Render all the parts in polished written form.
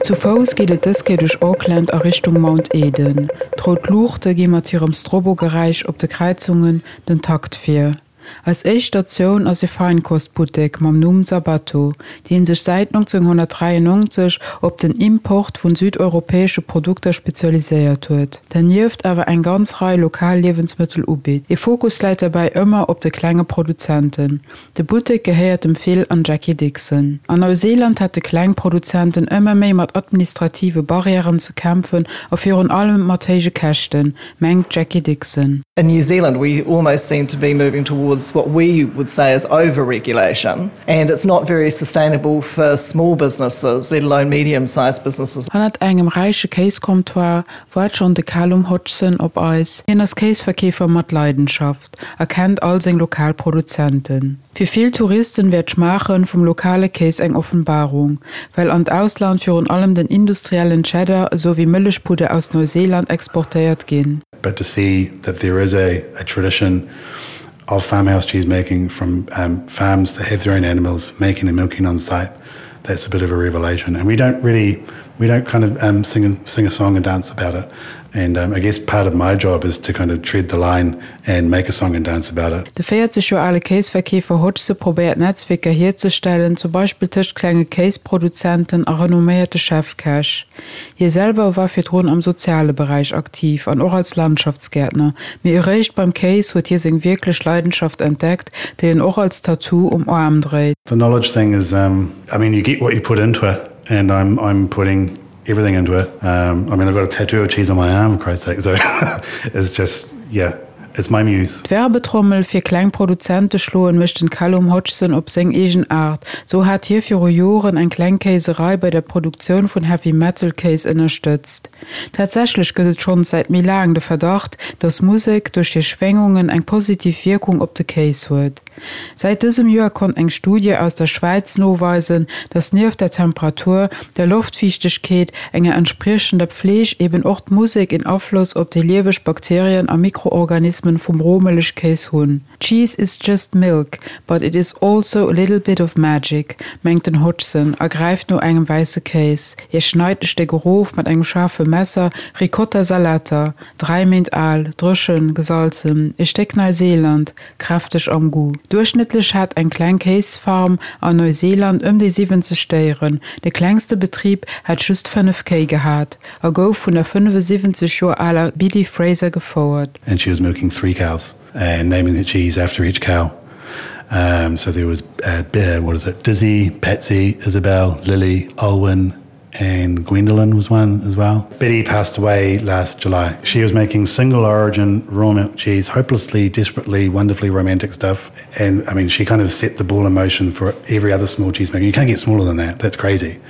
Zu Fouss geet et dës Kéier duerch Auckland a Richtung Mount Eden. D'rout Luuchte gi mat hirem Strobo-Geräisch op de Kräizungen den Takt vir. Eis éischt Statioun ass e Feinkostbuttek mam Numm Sabato, dee sech säit 1993 op den Import vun südeuropäesche Produkter spezialiséiert huet, dernieft awer eng ganz Rei lokal Liewensmëttel ubitt. E Fokus läit derbäi ëmmer op de klenge Produzenten. De Buttek gehéiert dem Phil an Jackie Dixon. An Neuseeland hätte kleng Produzenten ëmmer méi mat administrative Barrièren ze kämpfen a virun allem mat héije Käschten, mengt d'Jackie Dixon. In New Zealand we almost seem to be moving towards what we would say is over-regulation and it's not very sustainable for small businesses, let alone medium-sized businesses. Hannert engem räiche Kéiscomptoir waart schonn de Calum Hodgson op eis. Hien ass Kéisverkeefer mat Leidenschaft a kennt all seng lokal Produzenten. Fir vill Touristen wär d'Schmaachen vum lokale Kéis eng Offenbarung, well an d'Ausland virun allem den industriellen Cheddar esou wéi Mëllechpudder aus Neuseeland exportéiert ginn. But to see that there is a a tradition of farmhouse cheese making from farms that have their own animals making and milking on site, that's a bit of a revelation and we don't really we don't kind of um, sing, a, sing a song and dance about it. And um, I guess part of my job is to kind of tread the line and make a song and dance about it. De 40 Joer ale Kéisverkeefer Hodgson probéiert Netzwierker hierzestellen, zum Beispill tëscht klenge Kéisproduzenten a renomméierte Chefkäch. Hie selwer war virdrun am soziale Beräich aktiv an och als Landschaftsgäertner, mee eréischt beim Kéis huet hie seng wierklech Leidenschaft entdeckt, déi en och als Tattoo um Aarm dréit. The knowledge thing is, um, I mean you get what you put into it and I'm, I'm putting everything into it. Um, I mean I've got a tattoo of cheese on my arm, for Christ's sake, so it's just, yeah, it's my muse. D'Werbetrommel fir kleng Produzente schloen mécht den Callum Hodgson op seng eegen Aart. Sou hat hie viru Joren eng kleng Kéiserei bei der Produktioun vun Heavy Metal Kéis ënnerstëtzt. Tatsächlech gëtt et schonns säit méi laang de Verdacht, dass Musek duerch hir Schwéngungen eng positiv Wierkung op de Kéis huet. Säit dësem Joer konnt eng Studie aus der Schwäiz noweisen, dass nieft der Temperatur, der Loftfiichtegkeet, enger entspriechender Pfleeg eben och d'Musek een Afloss op déi lieweg Bakterien a Mikroorganismen vum Rohmëllechkéis hunn. Cheese is just milk, but it is also a little bit of magic, mengt den Hodgson a gräift no engem wäisse Kéis. Hie schneit e Stéck erof mat engem schaarfe Messer, Ricotta Salata, 3 Méint al, dréchen, gesalzen, e Stéck Neuseeland, Kräfteg am Goût. Duerchschnëttlech hat eng kleng Kéisfarm an Neuseeland ëm déi 70 Déieren. De klengste Betrib hätt just 5 Kéi gehat a gouf vun der 75 Joer aler Biddy Fraser gefouert. And she was milking three cows and naming the cheese after each cow. Um, so there was uh, what is it, Dizzy, Patsy, Isabel, Lily, Olwen, and Gwendolyn was one as well. Betty passed away last July. She was making single origin raw milk cheese, hopelessly, desperately, wonderfully romantic stuff. And I mean, she kind of set the ball in motion for every other small cheesemaker. You can't get smaller than that. That's crazy.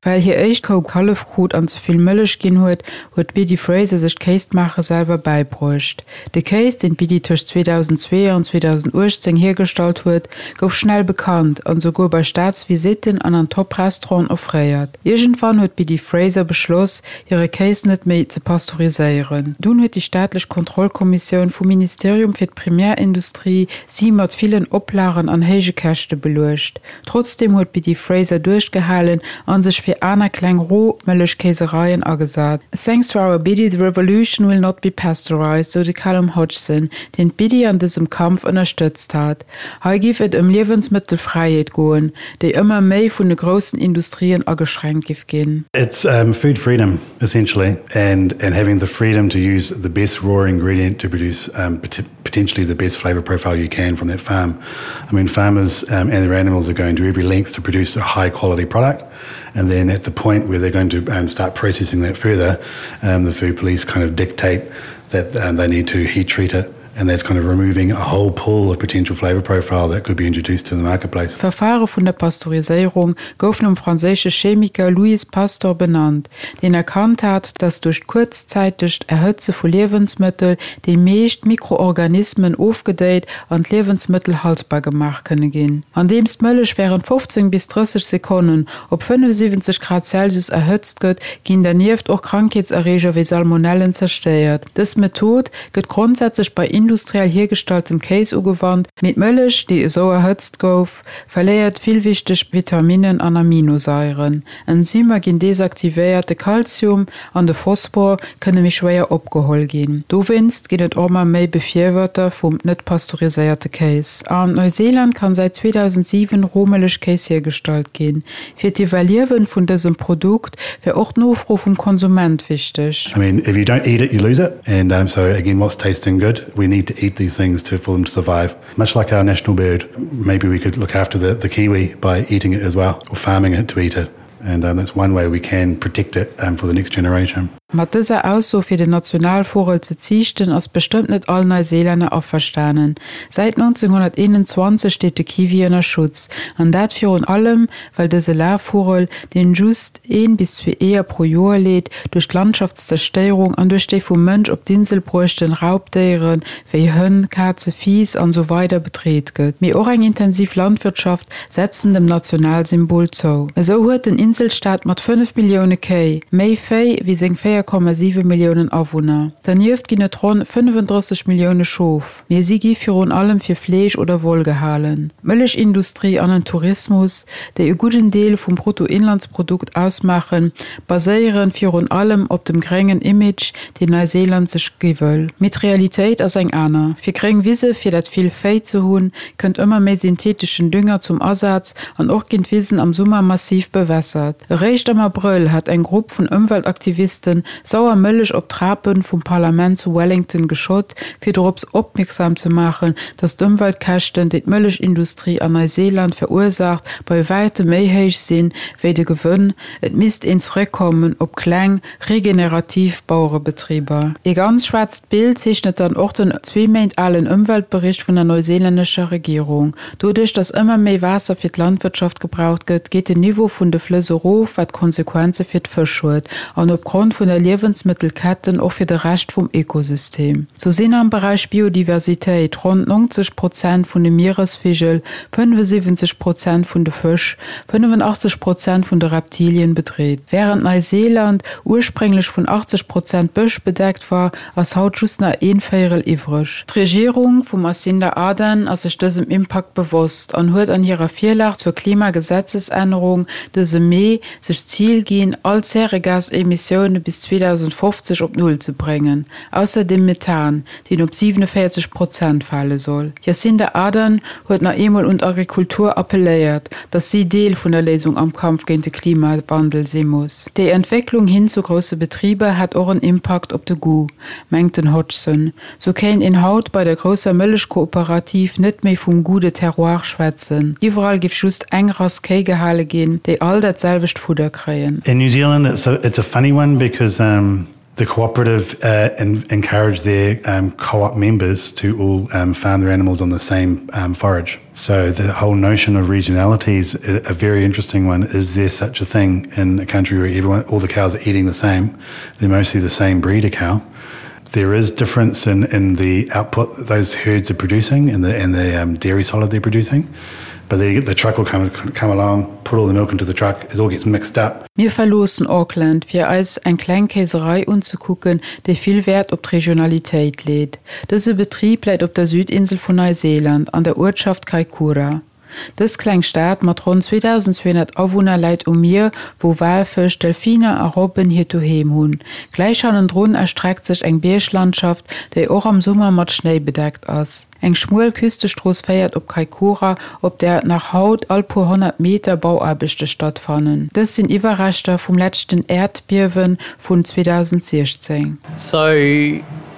Well hir éischt Kou Kallef krut an ze vill Mëllech ginn huet, huet d'Biddy Fraser sech d'Kéismaache selwer bäibruecht. De Kéis, deen d'Biddy tëscht 2002 an 2018 hiergestallt huet, gouf schnell bekannt an esouguer bei Staatsvisitten an an Top-Restauranten offréiert. Iergendwann huet d'Biddy Fraser beschloss, hire Kéis net méi ze pasteuriséieren. Dunn huet déi staatlech Kontrollkommissioun vum Ministerium fir d'Primärindustrie si mat villen Oplagen an héije Käschte beluecht. Trotzdeem huet d'Biddy Fraser duerchgehalen a sech fir aner kleng Rohmëllechkéisereien agesat. Thanks to our Biddy, the revolution will not be pasteurized, sou de Callum Hodgson, deen d'Biddy an dësem Kampf ënnerstëtzt hat. Hei giff et ëm Liewensmëttelfräiheet goen, déi ëmmer méi vun de groussen Industrien ageschränkt giff ginn. It's food freedom essentially and and having the freedom to use the best raw ingredient to produce potentially the best flavor profile you can from that farm. I mean farmers um, and their animals are going to every length to produce a high quality product and then at the point where they're going to um, start processing that further, um, the food police kind of dictate that um, they need to heat treat it and that's kind of removing a whole pool of potential flavor profile that could be introduced to the marketplace. D'Verfare vun der Pasteuriséierung gouf nom franséische Chemiker Louis Pasteur benannt, deen erkannt hat, datt duerch d'kuerzzäitegt Erhëtze vu Liewensmëttel déi meescht Mikroorganismen ofgedéit an d'Liewensmëttel haltbar gemaach kënne ginn. Andeems d'Mëllech wärend 15 bis 30 Sekonnen op 75 Grad Celsius erhëtzt gëtt, ginn dernieft och Krankheetserreeger wéi Salmonellen zerstéiert. Dës Method gëtt grondsätzlech bei. industriell hiergestalltem Kéis ugewannt, mee d'Mëllech, déi esou erhëtzt gouf, verléiert vill wichteg Vitaminnen an Aminosaieren. Enzymer ginn desaktivéiert, de Kalzium an de Phosphor kënne méi schwéier opgeholl ginn. Dowéinst ginn et och ëmmer méi Befirwërter vum net pasteuriséierte Kéis. An Neuseeland kann säit 2007 Rohmëllechkéis hiergestallt ginn. Fir d'Iwwerliewen vun dësem Produkt wär och d'Nofro vum Konsument wichteg. I mean, if you don't eat it, you lose it. And um, so again, what's tasting good? We need to eat these things to, for them to survive. Much like our national bird, maybe we could look after the, the kiwi by eating it as well, or farming it to eat it. And um, that's one way we can protect it um, for the next generation. Mat dëser Ausso fir den Nationalvugel ze ziichten ass bestëmmt net all Neuseelänner averstanen. Säit 1921 steet de Kiwi ënner Schutz, an dat virun allem well dëse Lafvugel, deen just een bis zwee Eeër pro Joer leet, duerch d'Landschaftszerstéierung an duerch déi vum Mënsch op d'Insel bruechten Raubdéiere wéi Hënn, Kaze, Fiiss an esou weider bedreet gëtt. Mee och eng intensiv Landwirtschaft setzen dem Nationalsymbol zou. Esou huet den Inselstaat mat 5 Millioune Kéi méi Véi wéi seng 4,7 Milliounen Awunner. Dernieft ginn et ronn 35 Millioune Schof, mee si gi virun allem fir Fleesch oder Woll gehalen. D'Mëllechindustrie an den Tourismus, déi e gudden Deel vum Bruttoinlandsprodukt ausmaachen, baséiere virun allem op dem gréngen Image, deen Neuseeland sech gi wëll. Mee d'Realitéit ass eng aner. Fir gréng Wise fir dat vill Véi ze hunn, kënnt ëmmer méi syntheteschen Dünger zum Asaz an och ginn d'Wisen am Summer massiv bewässert. Eréischt am Abrëll hat eng Grupp vun Ëmweltaktivisten sauer Mëllech op d'Trape vum Parlament zu Wellington geschott, fir dorops opmierksam ze maachen, datt d'Ëmweltkäschten, déi d'Mëllechindustrie an Neuseeland verursaacht, bei wäitem méi héich sinn, wéi de Gewënn. Et misst een zeréckkommen op kleng, Regenerativ Bauerebetriber. Ee ganz schwaarzt Bild zeechnet dann och den zwee Méint alen Ëmweltbericht vun der neuseelännescher Regierung. Doduerch, datt ëmmer méi Waasser fir d'Landwirtschaft gebraucht gëtt, geet den Niveau vun de Flëss erof, wat Konsequenze fir d'Fësch huet an opgrond vun der Liewensmëttelketten och fir de Rescht vum Ökosystem. Sou sinn am Beräich Biodiversitéit ronn 90 Prozent vun de Mieresvigel, 75 Prozent vun de Fësch, 85 Prozent vun de Reptilien bedreet. Wärend Neiseeland ursprénglech vun 80 Prozent Bësch bedeckt war, ass haut just nach een Véierel iwwreg. D'Regierung vum Jacinda Ardern ass sech dësem Impakt bewosst an huet an hirer Virlag zur Klimagesetzesännerung dëse Mee sech d'Zil ginn, all Zäregasemissioune bis 2050 op Null ze bréngen, ausser dem Methan, deen op 47 Prozent fale soll. D'Jacinda Ardern huet nach eemol un d'Agrikultur appelléiert, datt si Deel vun der Léisung am Kampf géint de Klimawandel si muss. Déi Entwécklung hin zu grousse Betriber hätt och en Impakt op de Goût, mengt den Hodgson. Sou kéint een haut bei der grousser Mëllechkooperativ net méi vum Goût de terroir schwätzen. Iwwerall giff just eng Rass Kéi gehale ginn, déi all dat selwecht Fudder kréien. In New Zealand it's a, it's a funny one because um, the cooperative uh, en encourage their um, co-op members to all um, farm their animals on the same um, forage. So the whole notion of regionality is a, a very interesting one. Is there such a thing in a country where everyone, all the cows are eating the same? They're mostly the same breed of cow. There is difference in, in the output those herds are producing and the, and the um, dairy solid they're producing. But the, the truck will come, come along, put all the milk into the truck, it all gets mixed up. Mir verloossen Auckland, fir eis eng kleng Kéiserei unzekucken, déi vill Wäert op d'Regionalitéit leet. Dëse Betrib läit op der Südinsel vun Neuseeland, an der Uertschaft Kaikoura. Dës kleng Stad mat ronn 2.200 Awunner läit um Mier, wou Walfësch, Delfiner a Robben hiert Doheem hunn. Gläich hannendrun erstreckt sech eng Bierglandschaft, déi och am Summer mat Schnéi bedeckt ass. Eng schmuel Küstestrooss féiert op Kaikoura, op där nach haut all puer 100 Meter Bauaarbechte stattfannen. Dës sinn Iwwerreschter vum leschten Äerdbiewe vun 2016. So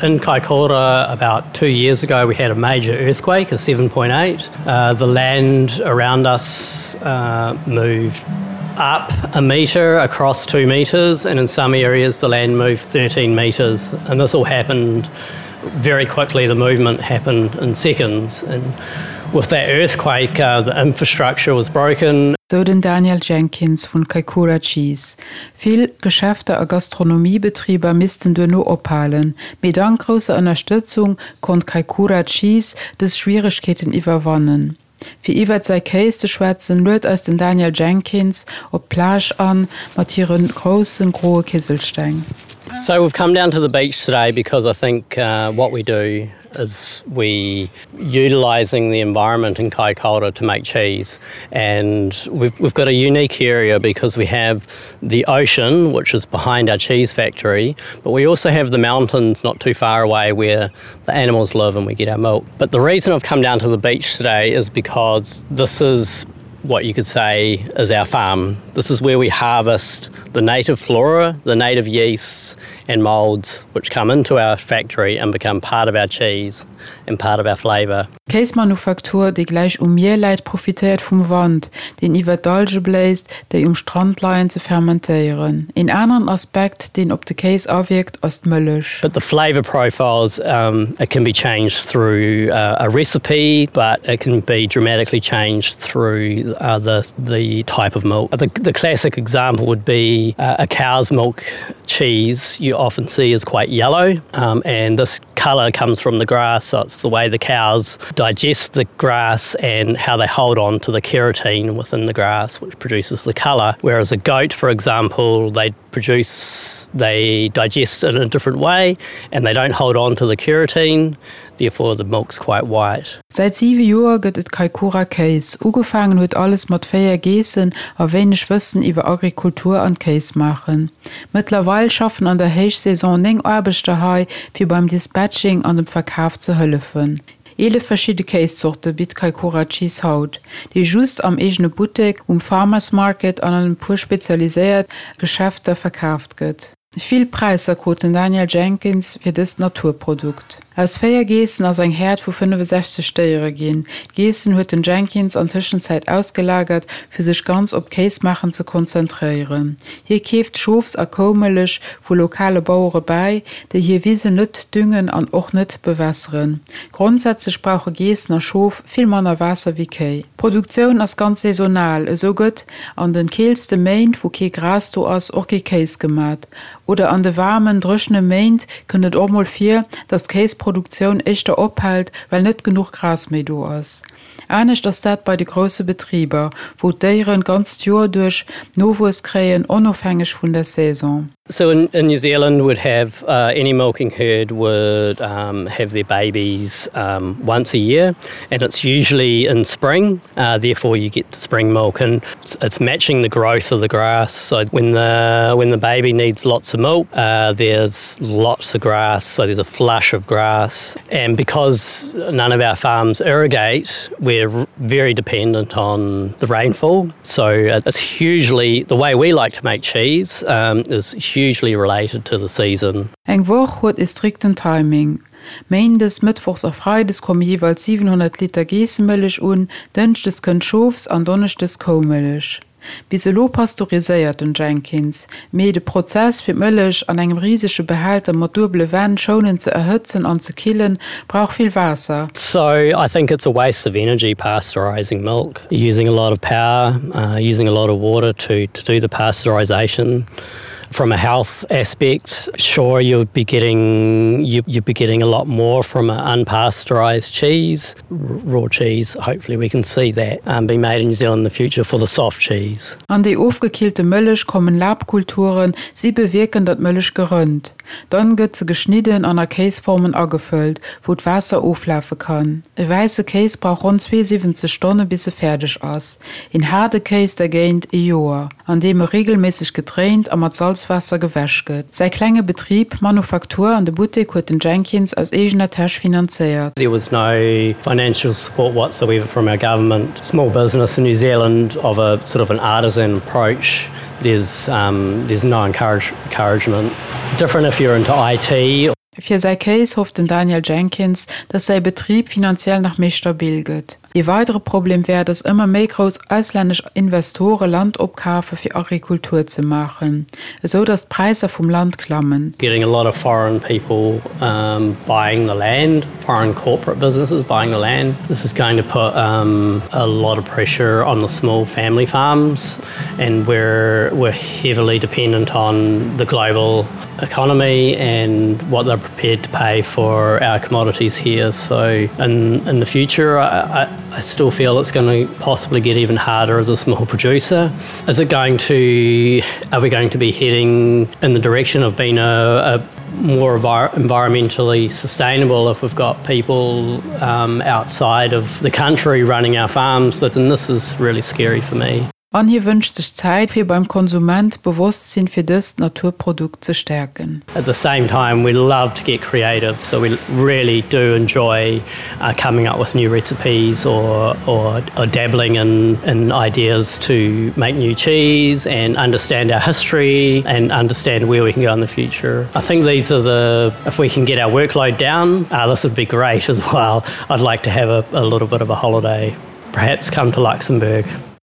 in Kaikoura about two years ago we had a major earthquake, a 7.8. Uh, the land around us uh, moved up a meter across two meters and in some areas the land moved 13 meters and this all happened very quickly the movement happened in seconds and with that earthquake uh, the infrastructure was broken. Sou den Daniel Jenkins vun Kaikoura Cheese. Vill Geschäfter a Gastronomiebetriber missten duerno ophalen, mee dank grousser Ënnerstëtzung konnt Kaikoura Cheese dës Schwieregkeeten iwwerwannen. Fir iwwert säi Kéis ze schwätzen, luet eis den Daniel Jenkins op d'Plage an, mat hire grousse groe Kiselsteng. So we've come down to the beach today because I think uh, what we do. is we utilising the environment in Kaikoura to make cheese. And we've, we've got a unique area because we have the ocean, which is behind our cheese factory, but we also have the mountains not too far away where the animals live and we get our milk. But the reason I've come down to the beach today is because this is what you could say is our farm. This is where we harvest the native flora, the native yeasts and molds which come into our factory and become part of our cheese and part of our flavour. D'Kéismanufaktur, déi gläich um Mier läit, profitéiert vum Wand, deen iwwer d'Alge bléist, déi um Strand leien, ze fermentéieren. Een aneren Aspekt, deen op de Kéis awierkt, ass d'Mëllech. But the flavour profiles, um, it can be changed through uh, a recipe, but it can be dramatically changed through uh, the, the type of milk. The, the classic example would be uh, a cow's milk cheese you often see is quite yellow, um, and this color comes from the grass, so it's the way the cows digest the grass and how they hold on to the keratin within the grass, which produces the color. Whereas a goat, for example, they produce, they digest in a different way and they don't hold on to the keratin, therefore the milk's quite white. Säit siwe Joer gëtt et Kaikoura Kéis. Ugefaangen huet alles mat 4 Geessen a wéineg Wëssen iwwer Agrikultur an Kéismaachen. Mëttlerweil schaffen an der Héichsaison 9 Aarbechter hei, fir beim Dispatching an dem Verkaf ze hëllefen. 11 verschidde Kéiszorte bitt Kaikoura Cheese haut, déi just am eegene Buttek, um Farmers Market an an e puer spezialiséiert Geschäfter verkaaft gëtt. Vill Präisser krut den Daniel Jenkins fir dëst Naturprodukt. Aus 4 Geessen ass eng Häerd vu 65 Déiere ginn. D'Geessen huet den Jenkins an Tëschenzäit ausgelagert, fir sech ganz op d'Kéismaachen ze konzentréieren. Hie keeft Schofs a Koumëllech vu lokale Bauere bäi, déi hir Wisen net düngen an och net bewässeren. Grondsätzlech brauche Geessen a Schof vill manner Waasser wéi Kéi. D'Produktioun ass ganz saisonal, esou gëtt an de keelste Méint, wou kee Gras do ass, och kee Kéis gemat. Oder an de waarmen, dréchene Méint kënnt et och mol vir, datt d'Kéisproduktioun éischter ophält, well net genuch Gras méi do ass. Anescht ass dat bei de grousse Betriber, wou d'Déieren d'ganzt Joer duerch Nowuess kréien, onofhängeg vun der Saison. So in, in New Zealand would have uh, any milking herd would um, have their babies um, once a year and it's usually in spring uh, therefore you get the spring milk and it's, it's matching the growth of the grass so when the when the baby needs lots of milk uh, there's lots of grass so there's a flush of grass and because none of our farms irrigate we're very dependent on the rainfall so uh, it's hugely the way we like to make cheese um, is hugely related to the season. Eng Woch huet e strikten Timing. Méindes, Mëttwochs a Freides komme jeeweils 700 Liter Geessemëllech un, Dënschdes kënnt Schofs an Donneschdes Koumëllech. Bis elo pasteuriséiert den Jenkins, mee de Prozess fir d'Mëllech an engem risege Behälter mat duebele Wänn schounend ze erhëtzen an ze killen, brauch vill Waasser. So I think it's a waste of energy pasteurizing milk, using a lot of power, uh, using a lot of water to, to do the pasteurization. From a health aspect, sure you'd be getting you, you'd be getting a lot more from an unpasteurized cheese, raw cheese. Hopefully we can see that um, be made in New Zealand in the future for the soft cheese. An déi ofgekillte Mëllech kommen Labkulturen, si bewierken, datt d'Mëllech gerënnt. Dann gëtt se geschnidden an a Kéisformen agefëllt, wou d'Waasser oflafe kann. E wäisse Kéis brauch ronn 72 Stonne bis e fäerdeg ass. Een haarde Kéis dergéint e Joer, an deem e regelméisseg gedréint a mat Salzwaasser gewäsch gëtt. Säi klenge Betrib, d'Manufaktur an de Buttek huet den Jenkins aus eegener Täsch finanzéiert. There was no financial support whatsoever from our government. Small business in New Zealand of a sort of an artisan approach, there's, um, there's no encourage, encouragement. Different if you're into IT. Fir säi Kéis hofft den Daniel Jenkins, datt säi Betrib finanziell nach méi stabil gëtt. Ee weidere Problem wär, datt ëmmer méi grouss auslännesch Investore Land opkafe fir Agrikultur ze maachen, esou datt d'Präisser vum Land klammen. Getting a lot of foreign people um, buying the land, foreign corporate businesses buying the land. This is going to put um, a lot of pressure on the small family farms and we're, we're heavily dependent on the global economy and what they're prepared to pay for our commodities here. So in, in the future, I, I, I still feel it's going to possibly get even harder as a small producer. Is it going to, are we going to be heading in the direction of being a, a more environmentally sustainable if we've got people um, outside of the country running our farms that and this is really scary for me. An hie wënscht sech Zäit, fir beim Konsument d'Bewosstsinn fir dëst Naturprodukt ze stäerken. At the same time we love to get creative, so we really do enjoy uh, coming up with new recipes or, or, or dabbling in, in ideas to make new cheese and understand our history and understand where we can go in the future. I think these are the if we can get our workload down, uh, this would be great as well. I'd like to have a, a little bit of a holiday, perhaps come to Luxembourg.